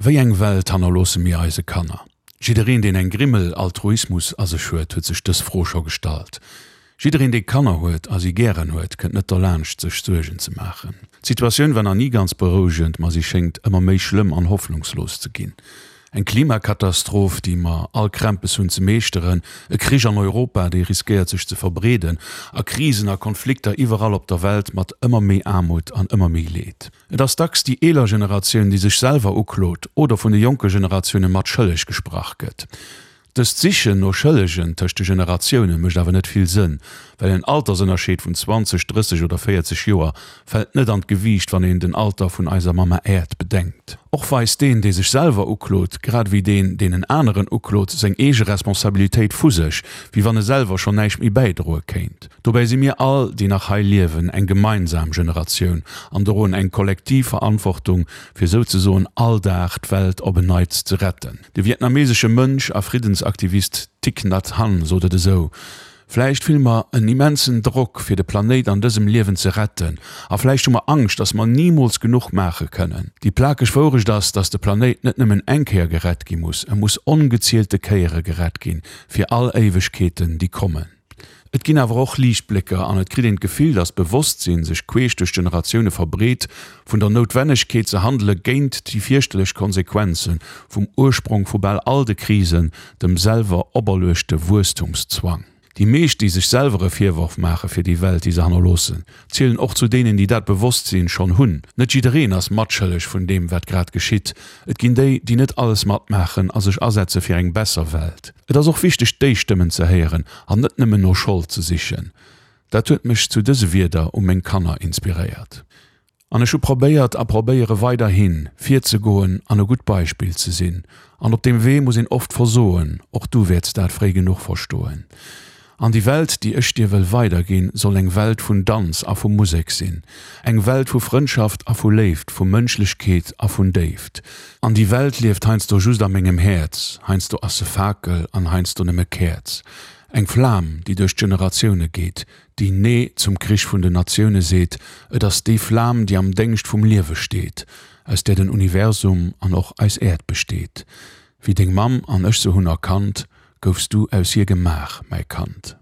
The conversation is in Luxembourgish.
Wéi eng Welt hannerloosse mir eise Kanner? Jiddereen, deen eng Grimmel Altruismus a sech huet, huet sech dës Fro scho gestallt. Jiddereen, dee Kanner huet a si gären huet, kënnt net derlaanscht, sech Suergen ze maachen. D'Situatioun war nach ni ganz berouegend, ma si schéngt ëmmer méi schlëmm an hoffnungslos ze ginn. Eng Klimakatastroph, déi mer all Krämpes hunn ze meeschteren, e Krich an Europa, dee riskéiert sech ze verbreeden, a Krisen a Konflikter iwwerall op der Welt mat ëmmer méi Aarmut an ëmmer méi Leed. Et ass dacks déi eeler Generatioun, déi sech selwer uklot oder vun de jonke Generatioune mat schëlleg gesprach gëtt. Dëst Sichen no Schëllegen tëscht de Generatioune mécht awer net vill Sënn, well en Altersënnerscheed vun 20, 30 oder 40 Joer fält net an d'Gewiicht, wann een den Alter vun eiser Mamma Äerd bedenkt. Och weist deen, dee sech selwer uklot, grad ewéi deen, deen en aneren uklot, seng eege Responsabilitéit vu sech, wéi wann e selwer schonn näischt méi bäidroe kéint. Dobäi si mir all, déi nach hei liewen, eng gemeinsam Generatioun an droen eng kollektiv Verantwortung, fir souzesoen all Dag d'Welt op en Neits ze retten. De vietnamesesche Mönch a Friddensaktivist Thich Nhat Hanh sot et esou, Vläicht fille mer en immensen Drock, fir de Planéit an dësem Liewen ze retten, a vläicht hu mer Angscht, dass mer nimools genuch maache kënnen. Déi plakeg Wourecht ass, dass de Planéit net nëmmen eng Kéier gerett gi muss, e muss ongezielte Kéiere gerett ginn, fir all Éiwegkeeten, déi kommen. Et ginn awer och Liichtblécker an et kritt een d'Gefill, datt d'Bewosstsinn sech queesch duerch d'Generatioune verbreet, vun der Noutwennegkeet ze handele géint déi fierchterlech Konsequenze vum Ursprong vu bal all de Krisen, dem selwer operluechte Wuesstumszwang. Déi meescht, déi sech selwer e Virworf maache fir déi Welt, déi se hannerloossen, zielen och zu deenen, déi dat Bewosstsinn schonn hunn. Net jiddereen ass matschëlleg vun deem, wat grad geschitt. Et ginn déi, déi net alles matmaachen a sech asetze fir eng besser Welt. Et ass och wichteg déi Stëmmen ze héieren an net nëmmen no Schold ze sichen. Dat huet mech zu dëse Wierder u meng Kanner inspiréiert. An ech hu probéiert a probéiere weiderhin, virzegoen an e gutt Beispill ze sinn. An op deem Wee muss een oft versoen, och du wäerts dat fréi genuch verstoen. An déi Welt, déi ech dir wëll weiderginn, soll eng Welt vun Danz a vu Musek sinn, eng Welt vu Frëndschaft a vu Léift, vu Mënschlechkeet a vun Déift. An déi Welt lieft heiansdo just a mengem Häerz, heiansdo ass se Fakel an heiansdo nëmme Käerz. Eng Flam, déi duerch d'Generatioune geet, déi Nee zum Krich vun den Natioune seet, et ass déi Flam, déi am Déngscht vum Liewe steet, aus där den Universum an och eis Äerd besteet. Wéi deng Mamm an ech se hunn erkannt, Goufs du aus hir gemaach, mäi Kand?